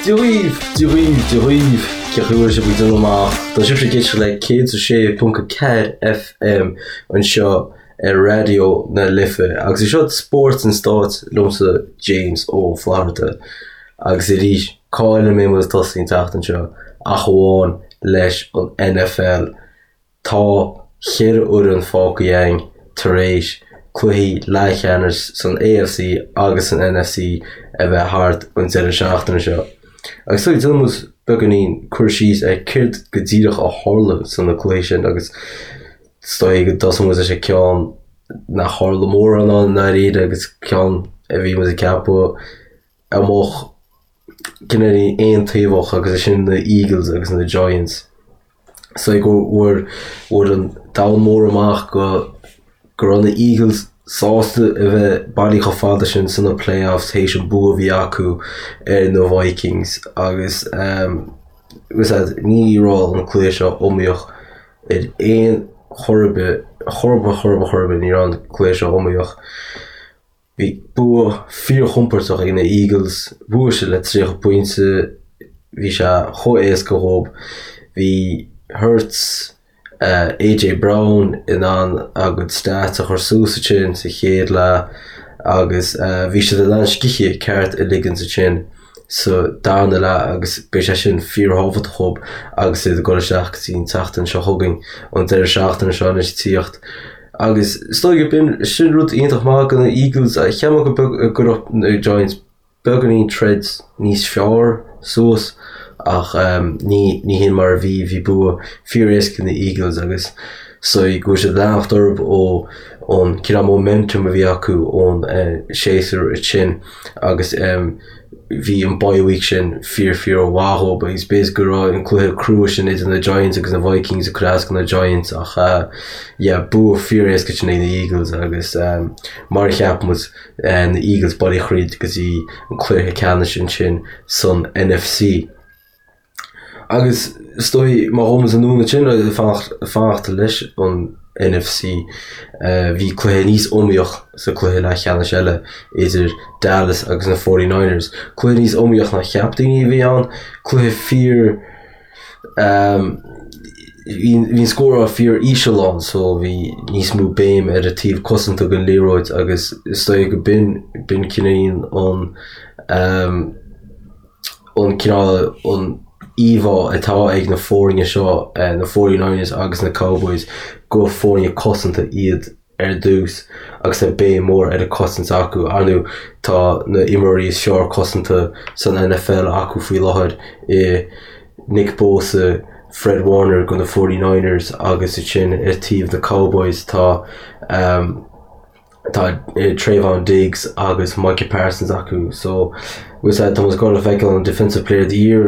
Dia dhaoibh, Dia dhaoibh, Dia dhaoibh, cén chaoi a bhfuil sibh ag déanamh amach? Tá sibhse ag éisteacht le 106.4 FM anseo ar Raidió na Life agus is seo Spórt an Stáit liomsa James Ó Flatharta agus arís cá eile a mbeidh muid ag tosaí an tseachtain seo ach amháin leis an NFL. Tá cheithre fhoireann fágtha againn tar éis cluichí leathcheannais san AFC agus san NFC a bheith thart an deireadh seachtaine seo. Agus so déanfaidh muid beagáinín cur síos ar céard go díreach a tharla sna cluichí sin agus is dóigh go dtosóidh muid leis an ceann nach tharla mórán ann i ndáiríre agus ceann a bhí muid ag ceapadh a mbeadh cineál aontaobhach agus é sin na Eagles agus na Giants. So go bhfuair bhfuair an domhan mór amach go go raibh na Eagles sásta a bheith bailithe chomh fada sin sna playoffs théis an bua a bhí acu ar na Vikings agus um, ní raibh an cluiche seo iomaíoch ar aon chor ar bith, chor ar bith, chor ar bith, chor ar bith, ní raibh an cluiche seo iomaíoch. Bhí bua fíorchompordach ag na Eagles, bhuaigh siad le 30 pointe, bhí sé chomh éasca dhóibh. Bhí Hurts, AJ Brown in ann a gcuid stats a chur suas ansin sa chéad leath agus bhí siad in ann scíth ceart a ligean ansin sa darna leath agus beidh sé sin fíorthábhachtach dhóibh agus iad ag dul isteach go dtí an tseachtain seo chugainn, an deireadh seachtaine seo anois ag tíocht. Agus is dóigh go b'in sin rud iontach maith do na Eagles. Cheap mé go beag go raibh na Giants beagáinín troid níos fearr suas ach ní ní hin mar a bhí. Bhí bua fíor-éasca ag na Eagles agus so go bhfuil siad ag leanacht orthu ó ón cineál momentum a bhí acu ón séasúr sin agus bhí an bye week sin fíor fíor mhaith dhóibh agus b'fhéidir go raibh an cluiche crua sin idir na Giants agus na Vikings ag cur as do na Giants ach yeah bua fíor éasca sin ag na Eagles agus mar a cheap muid na Eagles bailithe thríd go dtí an cluiche ceannais ansin san NFC. Agus is dóigh, má ghabhann muid anonn ansin, ag fanacht leis an NFC, bhí cluiche níos iomaíoch sa cluiche leathcheannais eile idir Dallas agus na Forty Niners. Cluiche níos iomaíoch ná cheap daoine a bhí ann, cluiche fíor, bhí an scóráil fíor íseal ann so bhí níos mó béim ar an taobh cosanta den liathróid agus is dóigh go b'in, b'in cineál an an cineál an íomhá atá ag na foirne seo, na Forty Niners agus na Cowboys, gur foirne cosanta iad ar dtús agus tá béim mór ar an cosaint acu. Ar ndóigh, tá na imreoirí is fearr cosanta san NFL acu faoi láthair i Nick Bosa, Fred Warner do na Forty Niners agus ansin ar taobh na Cowboys tá Tá Trevon Diggs agus Micah Parsons acu so tá muid ag gabháil a feiceáil an Defensive Player of the Year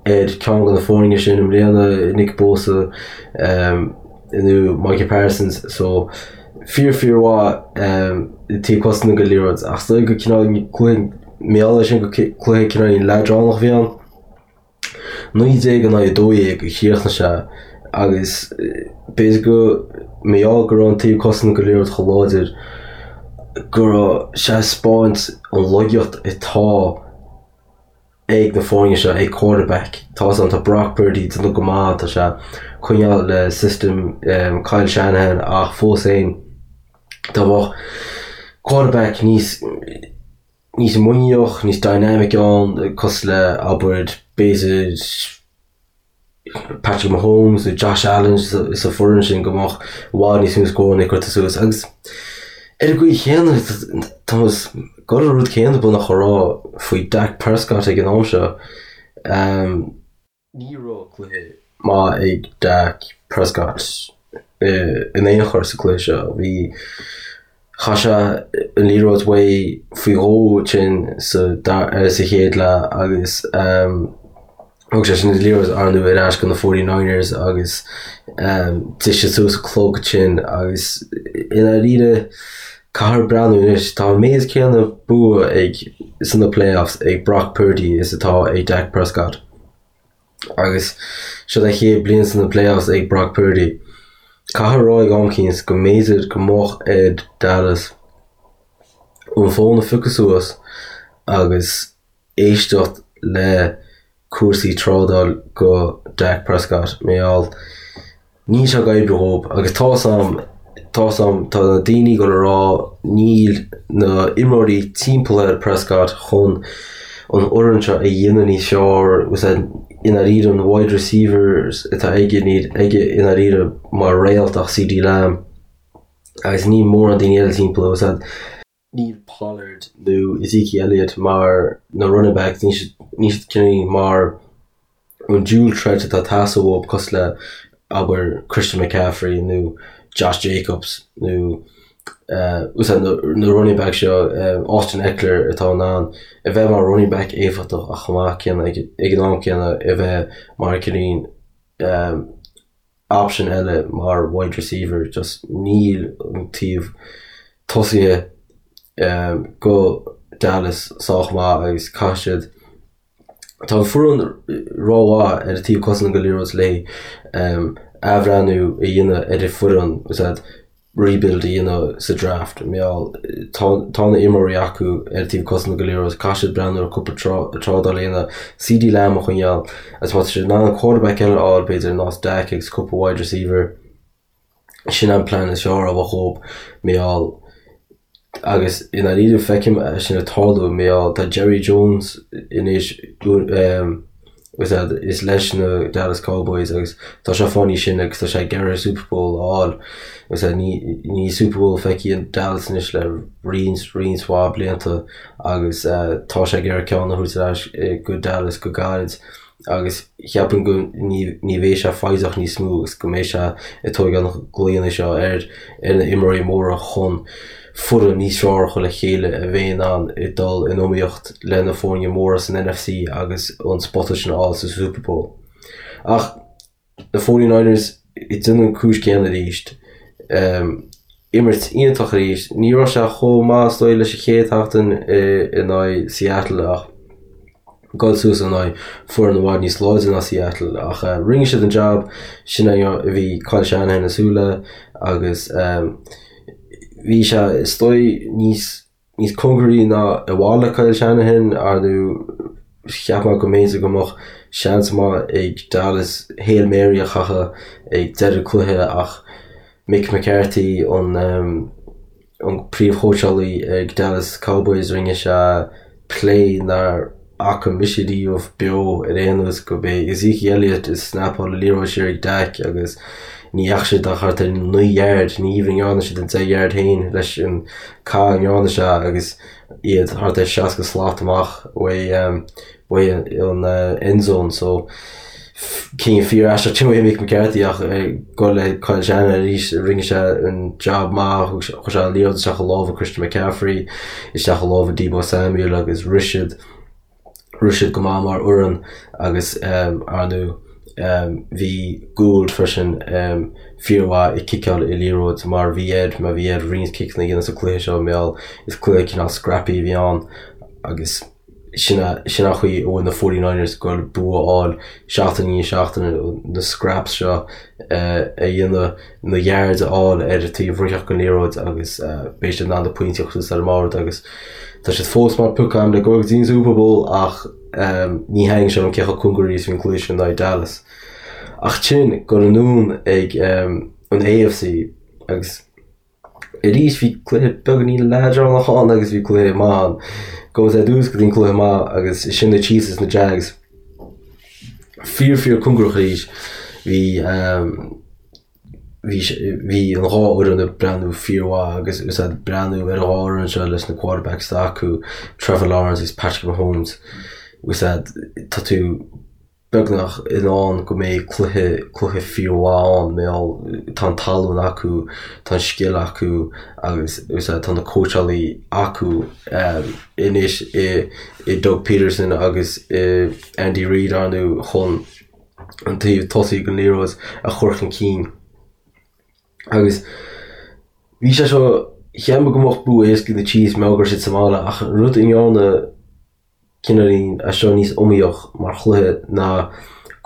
ar ceann de na foirne sin i mbliana, Nick Bosa nó Micah Parsons so fíor fíor mhaith taobh cosanta den liathróid ach is dóigh go cineál cluiche mar gheall air sin go cluiche cineál leadránach a bhí ann. 19 in aghaidh 12 a chríochnaigh sé agus b'fhéidir go mar gheall go raibh an taobh cosanta den liathróid chomh láidir go raibh sé ag 'spáint an laigeacht atá ag na foirne seo ag quarterback. Tá a fhios agam tá Brock Purdy ag déanamh go maith, tá sé ag coinneáil le system Kyle Shanahan ach fós féin dá mbeadh quarterback níos níos muiníneach, níos dynamic ann, cosúil le, abair, b'fhéidir Patrick Mahomes nó Josh Allen sa foireann sin go mbeadh i bhfad níos mó scóranna curtha suas agus ar an gcaoi chéanna tá muid ag dul an rud céanna beagnach a rá faoi Dak Prescott ag an am seo. Ní raibh cluiche maith ag Dak Prescott in aon chor sa chluiche seo. Bhí, chaith sé an liathróid uaidh faoi dhó ansin sa sa chéad leath agus thug sé sin an liathróid ar ndóigh ar ais go na Forty Niners agus d'ith siad suas an clog ansin agus i ndáiríre caithfear breathnú anois, tá an méid céanna bua ag sna playoffs ag Brock Purdy is atá ag Dak Prescott. Agus seo a chéad bliain sna playoffs ag Brock Purdy. Caithfear a rá ag am eicínt go mb'fhéidir go mbeadh ar Dallas an fón a phiocadh suas agus éisteacht le cúrsaí trádáil go Dak Prescott mar gheall níl sé ag oibriú dhób agus tá's a'm tá's a'm tá na daoine ag dul a rá níl na imreoirí timpeall ar Prescott chun an fhoireann seo a dhéanamh níos fearr was that i ndáiríre an wide receivers atá aige níl aige i ndáiríre mar réalt ach CeeDee Lamb agus níl mórán daoine eile timpeall was that Níl Pollard nó Ezekiel Elliott mar na running backs, níl siad, níl siad cineál mar an dual threat atá ag teastáil uathu cosúil le, abair, Christian McCaffrey nó Josh Jacobs nó úsáid na, na running backs seo, Austin Ekeler atá in ann a bheith mar running back éifeachtach ach chomh maith céanna ag, ag an am céanna a bheith mar cineál option eile mar wide receiver just níl an taobh tosaithe go Dallas sách maith agus caithfidh siad Tá an foireann rómhaith ar an taobh cosanta den liathróid le athbhreathnú a dhéanamh ar an foireann is rebuild a dhéanamh sa draft. Mar gheall tá tá na imreoirí acu ar an taobh cosanta den liathróid, caithfidh siad breathnú ar cúpla trádáil a dhéanamh, CeeDee Lamb a choinneáil agus má tá siad in ann quarterback eile a fháil b'fhéidir ar nós Dak agus cúpla wide receiver, sin an plean is fearr a bheadh dhób mar gheall agus i ndáiríre feicim é sin ag tarlú mar gheall tá Jerry Jones anois is leis na Dallas Cowboys agus tá sé fá choinne sin agus tá sé ag iarraidh Super Bowl a fháil agus níl Super Bowl feicthe ag Dallas anois le roinnt roinnt mhaith blianta agus tá sé ag iarraidh ceann a thabhairt ar ais go Dallas go gairid. agus cheapfainn go ní bheidh sé foighdeach níos mó agus go mbeidh sé ag tógáil na glaonna seo ar ar na imreoirí móra chun foireann níos fearr a chur le chéile a bheidh in ann dul in iomaíocht le na foirne móra san NFC agus an spota sin a fháil sa Super Bowl. Ach na 49ers ag déanamh an cúis céanna arís. Imirt iontach arís. Ní raibh sé chomh maith is dóigh leis an chéad sheachtain in aghaidh Seattle ach dul suas in aghaidh foireann i bhfad níos láidre ná Seattle ach rinne siad an jab sin a bhí Kyle Shanahan ag súil le agus bhí sé is dóigh níos níos cóngaraí ná i bhfad le Kyle Shanahan ar ndóigh cheap mé go mb'fhéidir go mbeadh seans maith ag Dallas Hail Mary a chaitheamh ag deireadh cluiche ach Mike McCarthy an an príomhchóitseálaí ag Dallas Cowboys rinne sé play nár fhaca mise riamh beo ar aon nós go b'é Ezekiel Elliott ag snapáil an liathróid siar ag Dak agus ní dheachaigh siad ach thart ar 9 yard, ní even ndearna siad an 10 yard féin leis an caith a ndearna sé agus iad thart ar 60 slat amach uaidh uaidh an end zone so cinneadh fíor aisteach sin uaidh Mick McCarthy ach ag dul le Kyle Shanahan arís rinne sé an job maith chuir sé an liathróid isteach i lámha Christian McCaffrey isteach i lámha Deebo Samuel agus rith siad rith siad go maith mar fhoireann agus ar ndóigh bhí Gould freisin fíormhaith ag ciceáil an liathróid mar bhí air mar bhí air roinnt ciceanna a dhéanamh sa cluiche seo mar gheall is cluiche cineál scrappy a bhí ann agus Sin an chaoi a bhfuil na 49ers ag goil bua a fháil seachtain i ndiaidh seachtaine, na scraps seo a dhéanamh, na yards a fháil ar an taobh rithfeadh den liathróid agus beidh siad in ann na pointí a chur suas ar an mbord agus tá siad fós mar pioc agam le goil go dtí an Super Bowl ach ní thaitníonn sé liom cé chomh cóngaraí is a bhí an cluiche sin in aghaidh Dallas. Ach sin goil anonn ag an AFC agus. Arís bhí cluiche beagáinín leadránach ann agus bhí cluiche maith ann. Gabhfaidh ar dtús go dtí an cluiche maith agus sin na Chiefs is na Jags. Fíor fíor cóngarach arís. Bhí bhí bhí an dhá fhoireann ag breathnú fíormhaith agus is ag breathnú ar an dhá fhoireann seo leis na quarterbacks atá acu, Trevor Lawrence agus Patrick Mahomes. Is tá tú beagnach i ndán go mbeidh cluiche, cluiche fíormhaith ann, mar gheall tá an tallann acu, tá an scil acu agus tá na cóitseálaí acu anois i i Doug Pederson agus i Andy Reid ar ndóigh chun an taobh tosaigh den liathróid a chur chun cinn. Agus bhí sé seo, cheap mé go mbeadh bua éasca ag na Chiefs mar go raibh siad sa mbaile ach an rud a ndearna cineáilín é seo níos iomaíoch mar chluiche ná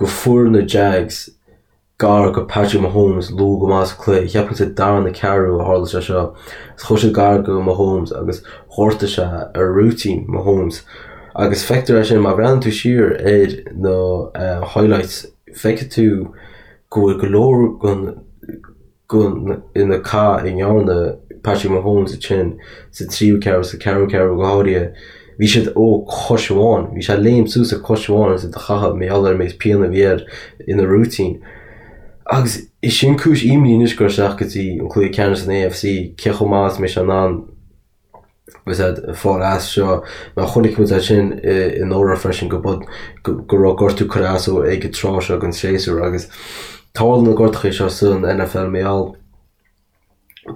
go fuair na Jags gar go Patrick Mahomes luath go maith sa cluiche. Cheapfainn sa darna ceathrú a tharla sé seo. Agus chuir siad gar go Mahomes agus ghortaigh sé a rúitín Mahomes. Agus feictear é sin má bhreathnaíonn tú siar ar na highlights, feicfidh tú go bhfuil go leor den na cath a ndearna Patrick Mahomes ansin sa tríú ceathrú, sa ceathrú ceathrú go háirithe, bhí siad ó chois amháin. Bhí sé ag léim suas ar chois amháin agus iad a chaitheamh mar gheall ar an méid pian a bhí air ina rúitín. Agus is sin cúis imní anois ag goil isteach go dtí an cluiche ceannais san AFC, cé chomh maith is a mbeidh sé in ann agus iad ag fáil as seo. Mar chonaic muid é sin anuraidh freisin go go raibh gortú curtha as dó ag an tráth seo den séasúr agus tarlaíonn na gortuithe seo san NFL mar gheall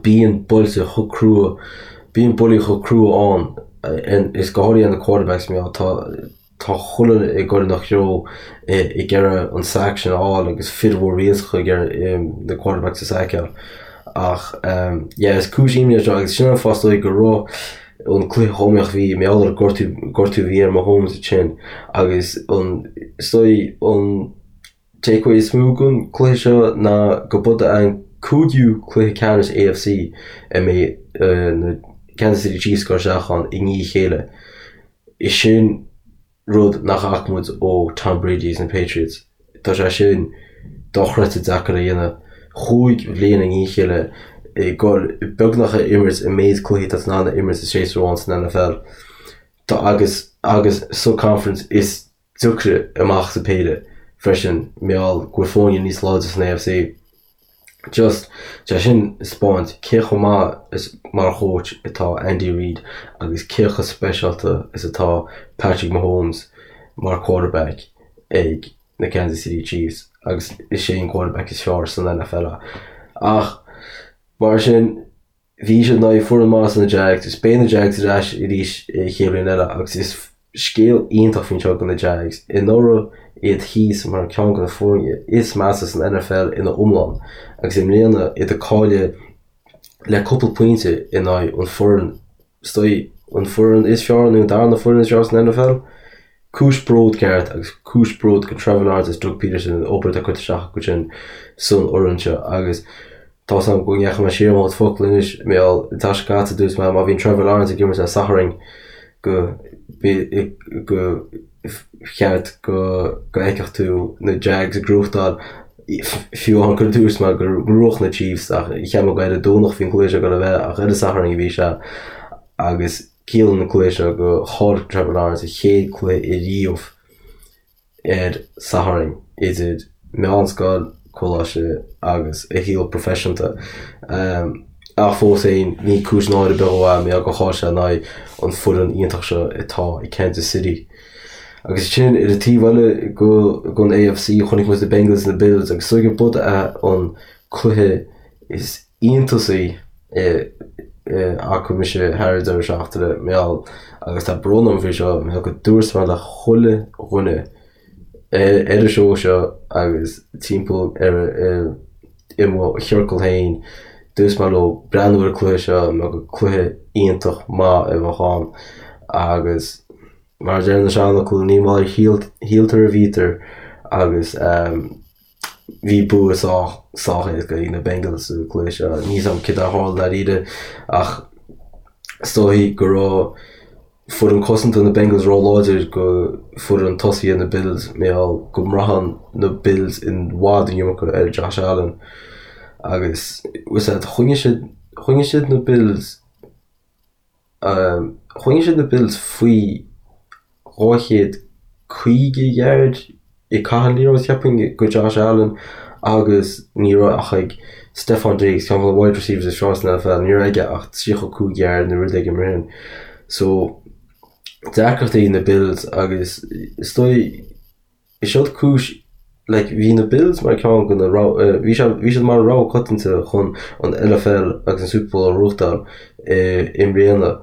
bíonn buailte chomh crua, bíonn buillí chomh crua ann is go háirithe na quarterbacks mar gheall tá Tá chuile dhuine ag goil ina threo ag iarraidh an sack sin a fháil agus fir mhór mhillteacha ag iarraidh na quarterbacks a saiceáil. Ach yeah is cúis imní é seo agus sin an fáth is dóigh go raibh an cluiche chomh iomaíoch bhí mar gheall ar an gortú gortú a bhí ar Mahomes ansin agus an is dóigh an takeaway is mó den cluiche seo ná go b'é an cúigiú cluiche ceannais AFC a mbeidh na Kansas City Chiefs ag goil isteach ann i ndiaidh a chéile. Is sin rud nach bhfaca muid ó Tom Brady agus na Patriots. Tá sé sin dochreidte deacair a dhéanamh. Chúig bhliain i ndiaidh a chéile ag goil beagnach a imirt an méid cluichí atá tú in ann a imirt i séasúr amháin san NFL. Tá agus agus sa conference is deacra amach sa péire freisin mar gheall go bhfuil foirne níos láidre san AFC. Just, sé sin ag spáint cé chomh maith is mar choach atá Andy Reid agus cé chomh speisialta is atá Patrick Mahomes mar quarterback ag na Kansas City Chiefs agus is é an quarterback is fearr san NFL é. Ach mar sin, Bhí siad in aghaidh foireann maith na Jags is beidh na Jags ar ais arís an chéad bhliain eile agus is scéal iontach faoin seo do na Jags. Anuraidh iad thíos mar ceann de na foirne is measa san NFL ina iomlán agus i mbliana iad ag cailleadh le cúpla pointe in aghaidh an foireann is dóigh an foireann is fearr nó an darna foireann is fearr san NFL. Cúis bród ceart agus cúis bród do Trevor Lawrence agus Doug Pederson an obair atá curtha isteach acu sin san fhoireann seo agus tá 's agam go ndeachaigh mé siar mo chuid focal anois mar gheall an tseachtain seo caite dúirt mé má bhíonn Trevor Lawrence ag imirt ar Satharn go go cheart go go bhfeicfeadh tú na Jags ag gnóthachtáil fiú amháin gur dúirt mé go mbuafadh na Chiefs ach cheap mé gur ar an Domhnach a bhí an cluiche seo ag dul a bheith ach ar an Satharn a bhí sé agus Ciallaíonn an cluiche seo go chaill Trevor Lawrence a chéad cluiche ariamh ar Satharn idir meánscoil, coláiste agus a shaol proifisiúnta. Ach fós féin, ní cúis náire ar bith dó é mar gheall gur chaill sé in aghaidh an foireann iontach seo atá ag Kansas City. Agus sin ar an taobh eile den AFC chonaic muid na Bengals na Bills agus is dóigh gurb é an cluiche is iontasaí a fhaca mise thar an deireadh seachtaine, mar gheall, agus tá brón orm faoi seo, mar gheall go dúirt mé le chuile dhuine ar an seó seo agus timpeall ar i mo chiorcal féin, dúirt mé leo breathnú ar an cluiche seo mar gur cluiche iontach maith a bheadh ann agus mar a deir na seanfhocail, ní mar a shíltear a bhítear agus. Bhí bua sách sách éasca ag na Bengals sa chluiche seo. Níl 'fhios a'm céard a tharla dáiríre ach is dóigh go raibh foireann cosanta na Bengals róláidir go foireann tosaithe na Bills mar gheall go mbraitheann na Bills i bhfad an iomarca ar Josh Allen agus bhfuil 'fhios a'd choinnigh siad choinnigh siad na Bills Choinnigh siad na Bills faoi 250 yard ag caitheamh an liathróid, cheapfainn, go Josh Allen agus ní raibh ach ag Stefon Diggs, ceann de na wide receivers is fearr san NFL, ní raibh aige ach 35 yard nó rud éigin mar sin. So, deacrachtaí ag na Bills agus is dóigh, Is seod cúis, like, bhí na Bills mar ceann de na rogha, bhí sé, bhí siad mar rogha coitianta chun an NFL agus an Super Bowl a ghnóthachtáil i mbliana.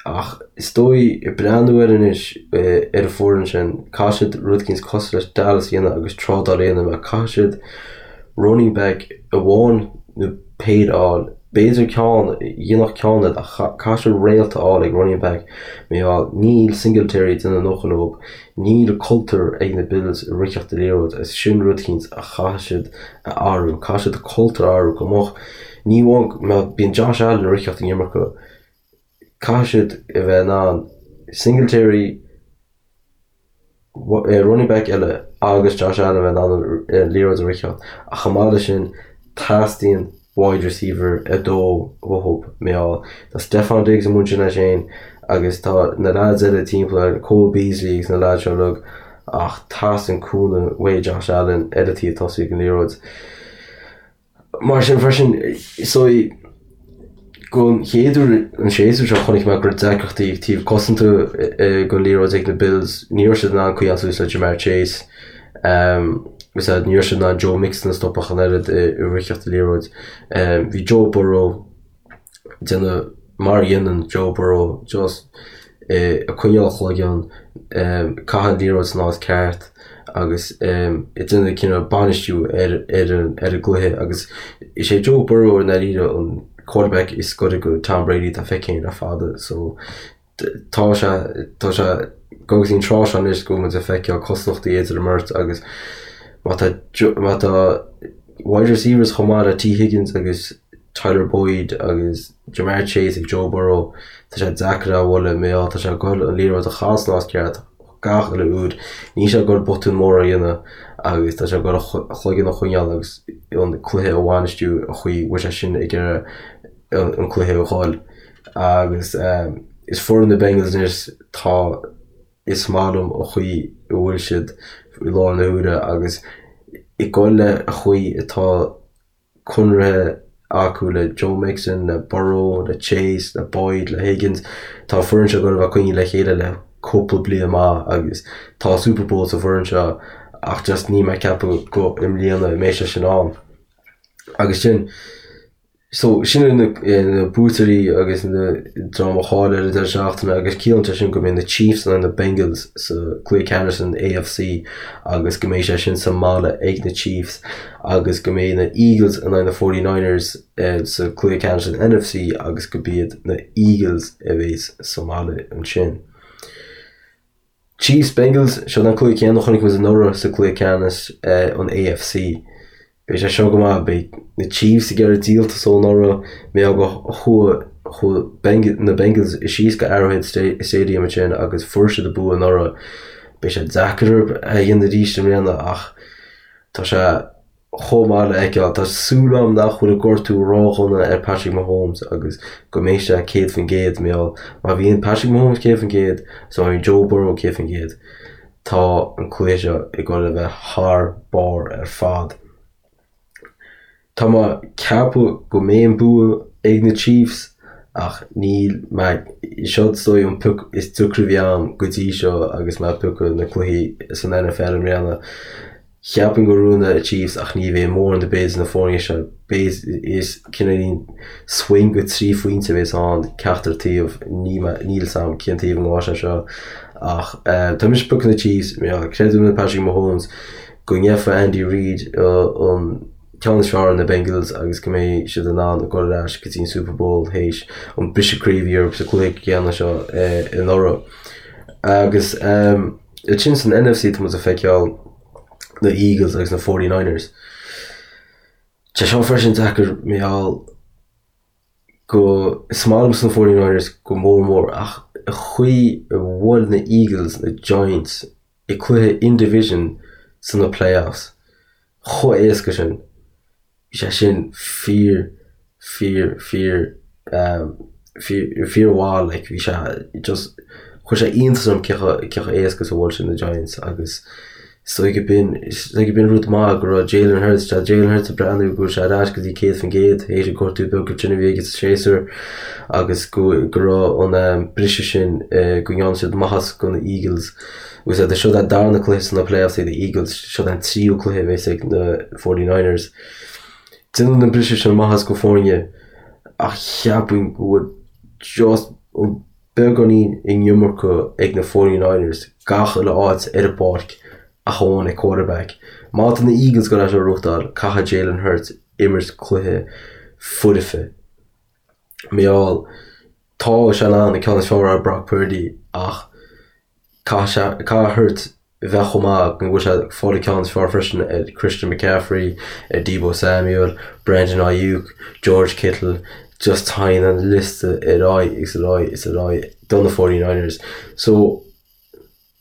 Ach is dóigh, ag breathnú air anois, ar an foireann sin, caithfidh siad rud éicint cosúil leis Dallas a dhéanamh agus trádáil a dhéanamh mar caithfidh siad running back amháin nó péire a fháil. B'fhéidir ceann, dhéanfadh ceann iad ach caithfidh siad réalt a fháil ag running back mar gheall níl Singletary ag déanamh a ndóthain dóibh. Níl cultúr ag na Bills i ritheacht an liathróid agus sin rud éicint a chaithfidh siad a athrú. Caithfidh siad cultúr a athrú go mbeadh, ní amháin mar bíonn Josh Allen ag ritheacht an iomarca, caithfidh siad a bheith in ann Singletary. running back eile agus Josh Allen a bheith in ann an liathróid a ritheacht ach chomh maith leis sin teastaíonn wide receiver 2 uathu mar gheall tá Stefon Diggs amuigh ansin leis féin agus tá na lads eile timpeall air, Cole Beasley agus na lads seo uilig ach teastaíonn cúnamh uaidh Josh Allen ar an taobh tosaigh den liathróid. Mar sin freisin, so don chéad uair an séasúr seo chonaic mé go raibh deacrachtaí ag taobh cosanta den liathróid ag na Bills. Ní raibh siad in ann coinneáil suas le Ja'Marr Chase. Agus ní raibh siad in ann Joe Mixon a stopadh ach an oiread i ritheacht an liathróid. Bhí Joe Burrow déanamh mar a dhéanann Joe Burrow, just ag coinneáil a chloigeann, caitheamh an liathróid san áit ceart agus ag déanamh cineál bainistiú ar ar an ar an gcluiche agus is é Joe Burrow i ndáiríre an quarterback is gaire go Tom Brady atá feicthe againn le fada so tá sé tá sé go dtí an tráth seo anois go bhfuil muid ag feiceáil cosúlachtaí idir an mbeirt agus má tá má tá wide receivers chomh maith le Tee Higgins agus Tyler Boyd agus Ja'Marr Chase ag Joe Burrow tá sé deacair é a bhualadh mar gheall tá sé ag goil an liathróid a chaitheamh san áit ceart gach uile uair. Níl sé ag goil botún mór a dhéanamh agus tá sé ag goil a chloigeann a choinneáil agus an cluiche a bhainistiú an chaoi a bhfuil sé sin ag iarraidh an cluiche a dhul. Agus is foireann na Bengals anois tá is maith liom an chaoi a bhfuil siad i láthair na huaire agus ag goil le an chaoi atá conraithe acu le Joe Mixon, le Burrow, le Chase, le Boyd, le Higgins. Tá an foireann seo ag goil a bheith coinnithe le chéile le cúpla bliain maith agus tá Super Bowl sa bhfoireann seo ach just níl mé ag ceapadh go i mbliana a mbeidh sé sin ann. Agus sin So, sin iad na buaiteoirí agus na dream a chaill ar an deireadh seachtaine agus ciallaíonn sé sin go mbeidh na Chiefs in aghaidh na Bengals sa cluiche ceannais san AFC agus go mbeidh sé sin sa mbaile ag na Chiefs agus go mbeidh na Eagles in aghaidh na 49ers sa cluiche ceannais san NFC agus go b'iad na Eagles a bheas sa mbaile ansin. Chiefs, Bengals, seo an cluiche céanna a chonaic muid anuraidh sa cluiche ceannais an AFC. Beidh sé seo go maith, beidh na Chiefs ag iarraidh díoltas ó anuraidh, mar gheall go chuaigh chuaigh na Bengals síos go Arrowhead Stadium ansin agus fuair siad an bua anuraidh. Beidh sé deacair orthu é a dhéanamh arís i mbliana ach tá sé chomh maith le feiceáil. Tá súil agam nach bhfuil an gortú ródhona ar Patrick Mahomes agus go mbeidh sé 100% mar gheall má bhíonn Patrick Mahomes 100% is má bhíonn Joe Burrow 100% tá an cluiche seo ag dul a bheith thar barr ar fad. Tá mé ag ceapadh go mbeidh an bua ag na Chiefs ach níl mé, seo is dóigh an pioc is deacra a bhí agam go dtí seo agus mé ag piocadh na cluichí san NFL i mbliana. Cheapfainn go mbuafaidh na Chiefs ach ní bheidh mórán ar bith idir na foirne seo. Beidh is cineáilín swing go 3 phointe a bheas ann ceachtar taobh. Níl a fhios agam cén taobh a ngabhfaidh sé seo ach tá mise ag piocadh na Chiefs. Creidim in Patrick Mahomes go ngeobhaidh Andy Reid an ceann is fearr ar na Bengals agus go mbeidh siad in ann dul ar ais go dtí an Super Bowl théis an briseadh croí a bhí orthu sa cluiche céanna seo anuraidh. Agus. Ansin san NFC tá muid ag feiceáil na Eagles agus na 49ers. Tá seo freisin deacair mar gheall go is maith liomsa na 49ers go mór mór ach an chaoi a bhuail na Eagles na Giants i cluiche in division sna playoffs chomh éasca sin. Bhí sé sin fíor, fíor, fíor, fíor, fíor mhaith like bhí sé just chuir sé iontas orm cé chomh cé chomh éasca is a bhuail siad na Giants agus is dóigh go b'in is dóigh go b'in rud maith go raibh Jalen Hurts tá Jalen Hurts ag breathnú go bhfuil sé ar ais go dtí 100% théis an gortú beag sin a bhí aige sa séasúr agus go go raibh an briseadh sin go ndearna siad maitheas go na Eagles Agus é seo an darna cluiche sna playoffs ag na Eagles, seo an tríú cluiche a bheas ag na 49ers. Déanann an briseadh sin maitheas go foirne ach cheapfainn go bhfuil just an beagáinín an iomarca ag na 49ers gach uile áit ar an bpáirc ach amháin ag quarterback. Má tá na Eagles ag goil é seo a ghnóthachtáil, caithfidh Jalen Hurts imirt cluiche foirfe. Mar gheall, tá sé in ann an ceann is fearr ar Brock Purdy ach caithfidh sé, caithfidh Hurts bheith chomh maith go bhfuil sé ag fáil an ceann is fearr freisin ar Christian McCaffrey, ar Deebo Samuel, Brandon Aiyuk, George Kittle, just téann an liosta ar aghaidh agus ar aghaidh is ar aghaidh do na 49ers. So.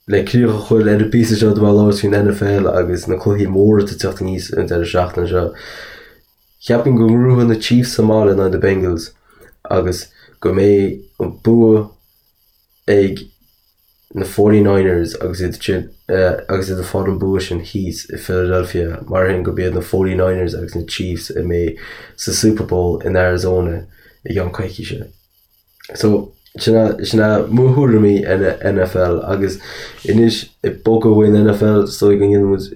le críoch a chur ar an bpíosa seo de labhairt faoin NFL agus na cluichí móra atá ag teacht aníos an deireadh seachtaine seo, cheapfainn go ngnóthóidh na Chiefs sa mbaile in aghaidh na Bengals agus go mbeidh an bua ag na 49ers agus iad sin agus iad ag fáil an bua sin thíos i Philadelphia mar sin gurb iad na 49ers agus na Chiefs a mbeidh sa Super Bowl in Arizona i gceann coicíse. So, sin é, sin é mo thuairimí ar an NFL agus anois ag bogadh uain NFL is dóigh go ndéanfaidh muid,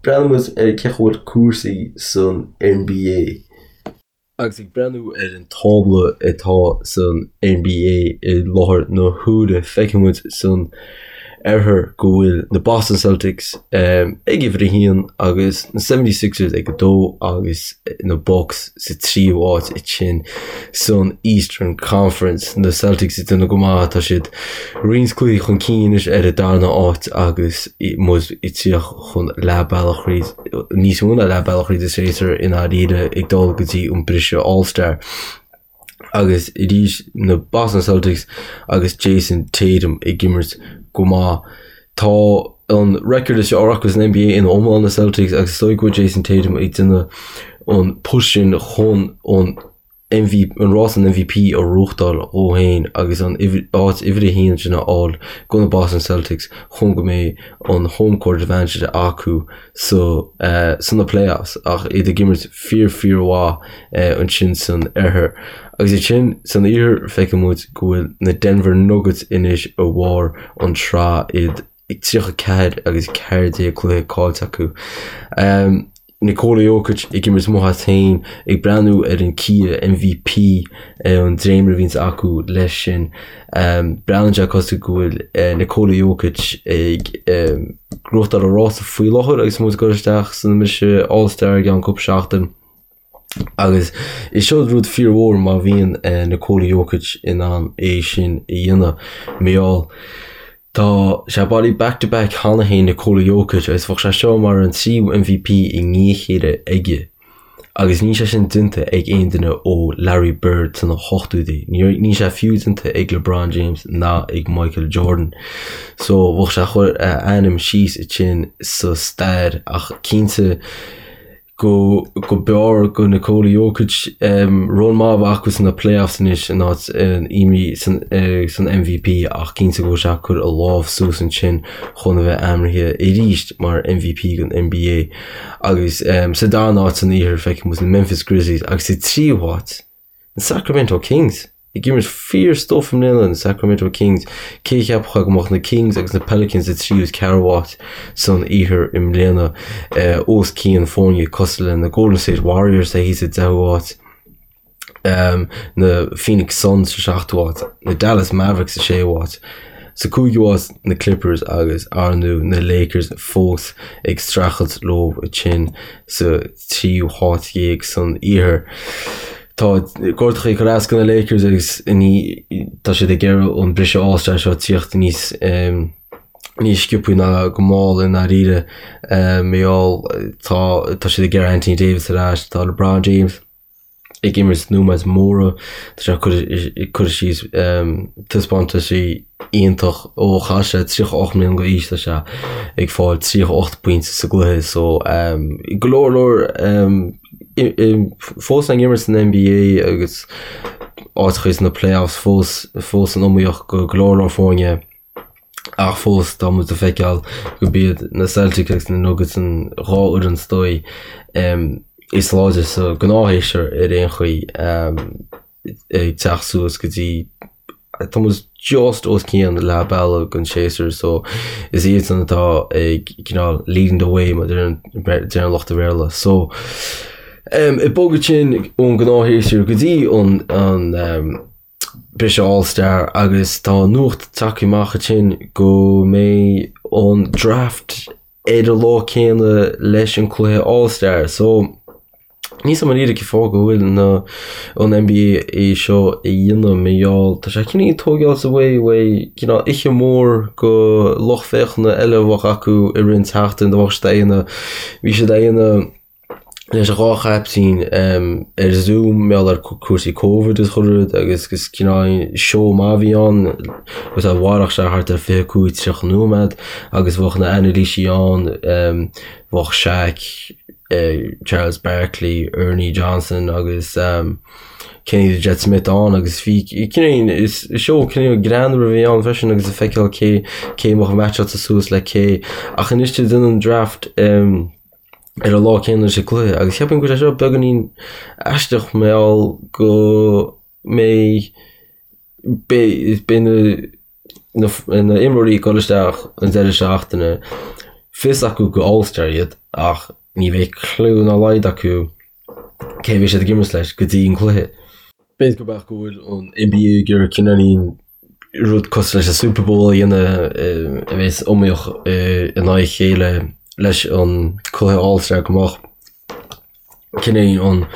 breathnóidh muid ar cén chaoi a bhfuil cúrsaí san NBA. Agus ag breathnú ar an tábla atá san NBA i láthair na huaire, feicfidh muid san oirthear go bhfuil na Boston Celtics ag uimhir a haon agus na 76ers ag a dó agus na Bucks sa tríú háit ansin san Eastern Conference. Na Celtics ag déanamh go maith, tá siad roinnt cluichí chun cinn anois ar an darna háit agus muid ag tíocht chun leath bealach thríd, níos mó ná leath bealach thríd an séasúr i ndáiríre ag dul go dtí an briseadh All-Star. Agus arís na Boston Celtics agus Jayson Tatum ag imirt go maith. Tá an record is fearr acu san NBA ina iomlán na Celtics agus is dóigh go bhfuil Jayson Tatum ag déanamh an push sin chun an MV an rás an MVP a ghnóthachtáil dhó féin agus an áit uimhir a haon sin a fháil do na Boston Celtics chun go mbeidh an home court advantage acu sa sna playoffs ach iad ag imirt fíor fíor mhaith ansin san oirthear. Agus ansin san iarthar feicfidh muid go bhfuil na Denver Nuggets anois i bharr an tsraith iad ag 34 agus 14 cluiche caillte acu. Nikola Jokic ag imirt amuigh as féin, ag breathnú ar an Kia MVP an dréimire a bhíonns acu leis sin. Breathnaíonn sé cosúil go bhfuil Nikola Jokic ag gnóthachtáil an rása faoi láthair agus muid ag dul isteach san mbriseadh All Star i gceann cúpla seachtain. Agus is seo rud fíormhór má bhíonn Nikola Jokic in ann é sin a dhéanamh. Mar gheall tá sé bailithe back to back cheana féin Nikola Jokic agus bheadh sé seo mar an tríú MVP i ndiaidh a chéile aige agus níl sé sin déanta ag aon duine ó Larry Bird sna hochtóidí. Níl sé fiú déanta ag LeBron James ná ag Michael Jordan. So bheadh sé ag cur a ainm síos ansin sa stair ach cinnte go go b'fhearr go Nikola Jokic run maith a bheith acu sna playoffs anois in áit iomaí san san MVP ach cinnte go bhfuil sé ag cur a lámh suas ansin chun a bheith ainmnithe arís mar MVP den NBA agus sa darna háit san iarthar feicfidh muid na Memphis Grizzlies agus sa tríú háit Na Sacramento Kings ag imirt fíor stuif i mbliana, na Sacramento Kings. Cé a cheapfadh go mbeadh na Kings agus na Pelicans sa tríú is ceathrú háit san iarthar i mbliana, os cionn foirne cosúil le na Golden State Warriors atá thíos sa deichiú háit, na Phoenix Suns sa seachtú háit, na Dallas Mavericks sa séú háit. Sa cúigiú háit na Clippers agus ar ndóigh na Lakers fós ag streachailt leo ansin sa tríú háit dhéag san iarthar. Tá gortachaí ag cur as do na Lakers agus ní tá siad ag iarraidh an briseadh All-Star seo tíocht níos níos sciobthaí ná go mall i ndáiríre. Mar gheall tá tá siad ag iarraidh Anthony Davis ar ais, tá LeBron James ag imirt nóiméid móra, tá sé ag cur síos taispeántaisí iontach ó chaill sé 38 mbliana d'aois tá sé ag fáil 38 pointe sa gcluiche so go leor leor fós ag imirt san NBA agus áiteachaí sna playoffs fós fós san iomaíocht go go leor leor foirne. Ach fós, tá muid ag feiceáil gurb iad na Celtics agus na Nuggets an dhá fhoireann is dóigh is láidre sa ghnáthshéasúr ar aon chaoi ag teacht suas go dtí tá muid just os cionn leath bealaigh den séasúr so is iadsan atá ag cineál leading the way mar a deireann lucht an Bhéarla. So ag bogadh sin ón gnáthshéasúr go dtí an an briseadh All Star agus tá nuacht tagtha amach ansin go mbeidh an draft ar an lá céanna leis an cluiche All Star so níl a fhios agam i ndáiríre cén fáth go bhfuil na an NBA é seo a dhéanamh mar gheall tá sé cineál tógáilt away uaidh cineál oíche mór go lucht féachana eile a bheadh acu i rith an tseachtain do bheadh siad a dhéanamh bhí siad a dhéanamh. Leis an dhá chaiptín ar Zoom mar gheall ar cúrsaí Covid is chuile rud agus is cineál seó maith a bhí ann agus a mhairfeadh sé thart ar 25, 30 nóiméad agus bheadh na anailísí ann, bheadh Shaq, Charles Barkley, Ernie Johnson agus Kenny the Jet Smith ann agus bhí cineál is seó cineál greannmhar a bhí ann freisin agus ag feiceáil cé cé a bheadh meaitseáilte suas le cé ach anois tá siad ag déanamh an draft ar an lá céanna leis an gcluiche agus cheapfainn go bhfuil sé seo beagáinín aisteach mar gheall go mbeidh beidh beidh na na na imreoirí ag dul isteach an deireadh seachtaine fios acu gur All-Star iad ach ní bheidh clue dá laghad acu cé a bheidh siad ag imirt leis go dtí an cluiche. B'fhéidir go mbeadh go bhfuil an NBA ag iarraidh cineáilín rud cosúil leis an Super Bowl a dhéanamh a bheas iomaíoch in aghaidh a chéile leis an cluiche All-Star go mbeadh cineáilín an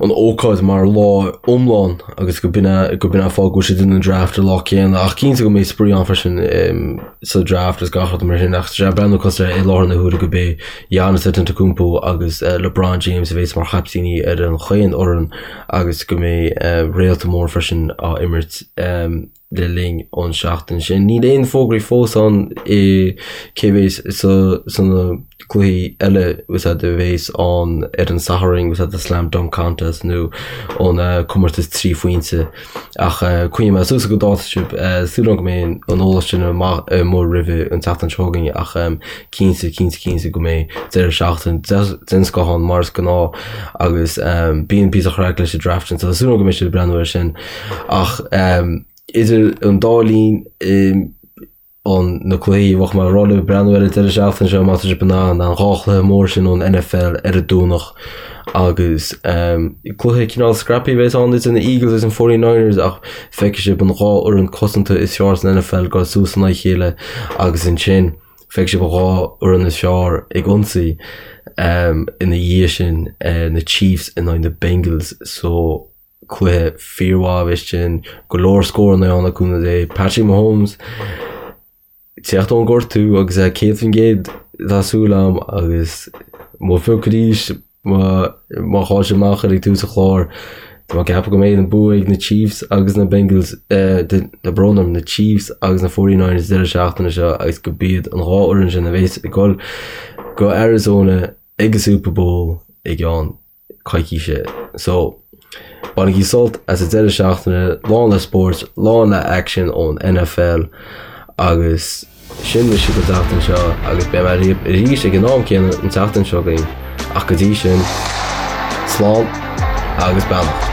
an ócáid mar lá iomlán agus go b'in é go b'in é an fáth go bhfuil siad ag déanamh an draft an lá céanna ach cinnte go mbeidh spraoi ann freisin sa draft is gach rud mar sin ach tá sé ag breathnú cosúil i láthair na huaire go b'é Giannis Antetokounmpo agus LeBron James a bheas mar chaiptíní ar an chaon fhoireann agus go mbeidh réalta mór freisin á imirt le linn an seachtain sin. Níl aon fógraí fós ann i cé bheas sa sna cluichí eile a bheas ann ar an Satharn the Slam Dunk Contest nó an comórtas 3 phointe ach coinneoidh mé suas go dáta sibh. Súil agam go mbeidh an eolas sin amach amuigh roimhe an tseachtain seo chugainn ach cinnte, cinnte, cinnte go mbeidh deireadh seachtaine den scoth ann mar is gnáth agus bíonn píosa craic leis an draft sin so súil agam go mbeidh sibh ag breathnú air sin ach idir an dá linn an na cluichí bheadh mé ag rá libh breathnú ar an deireadh seachtaine seo má tá sibh in ann an dhá chluiche mór sin ón NFL ar an Domhnach agus cluiche cineál scrappy a bheas ann idir na Eagles agus an 49ers ach feicfidh sibh an dhá fhoireann cosanta is fearr san NFL ag dul suas in aghaidh a chéile agus ansin Feicfidh sibh an dhá fhoireann is fearr ag ionsaí ina dhiaidh sin, na Chiefs in aghaidh na Bengals so cluiche fíormhaith a bheas sin, go leor scóranna ann le cúnamh Dé. Patrick Mahomes ag teacht ón gortú agus é 100% tá súil agam agus mo phioc arís Má má chaill sé amach ar ag tús an chláir, tá mé ag ceapadh go mbeidh an bua ag na Chiefs agus na Bengals, tá brón orm, na Chiefs agus na 49ers deireadh seachtaine seo agus go b'iad an dhá fhoireann sin a bheas ag dul go Arizona ag an Super Bowl i gceann coicíse. So, bainigí sult as an deireadh seachtaine, lán le spóirt, lán le aicsean ón NFL agus. Sin mise don tseachtain seo agus beidh mé libh arís ag an am céanna an tseachtain seo chugainn ach go dtí sin, slán agus beannacht.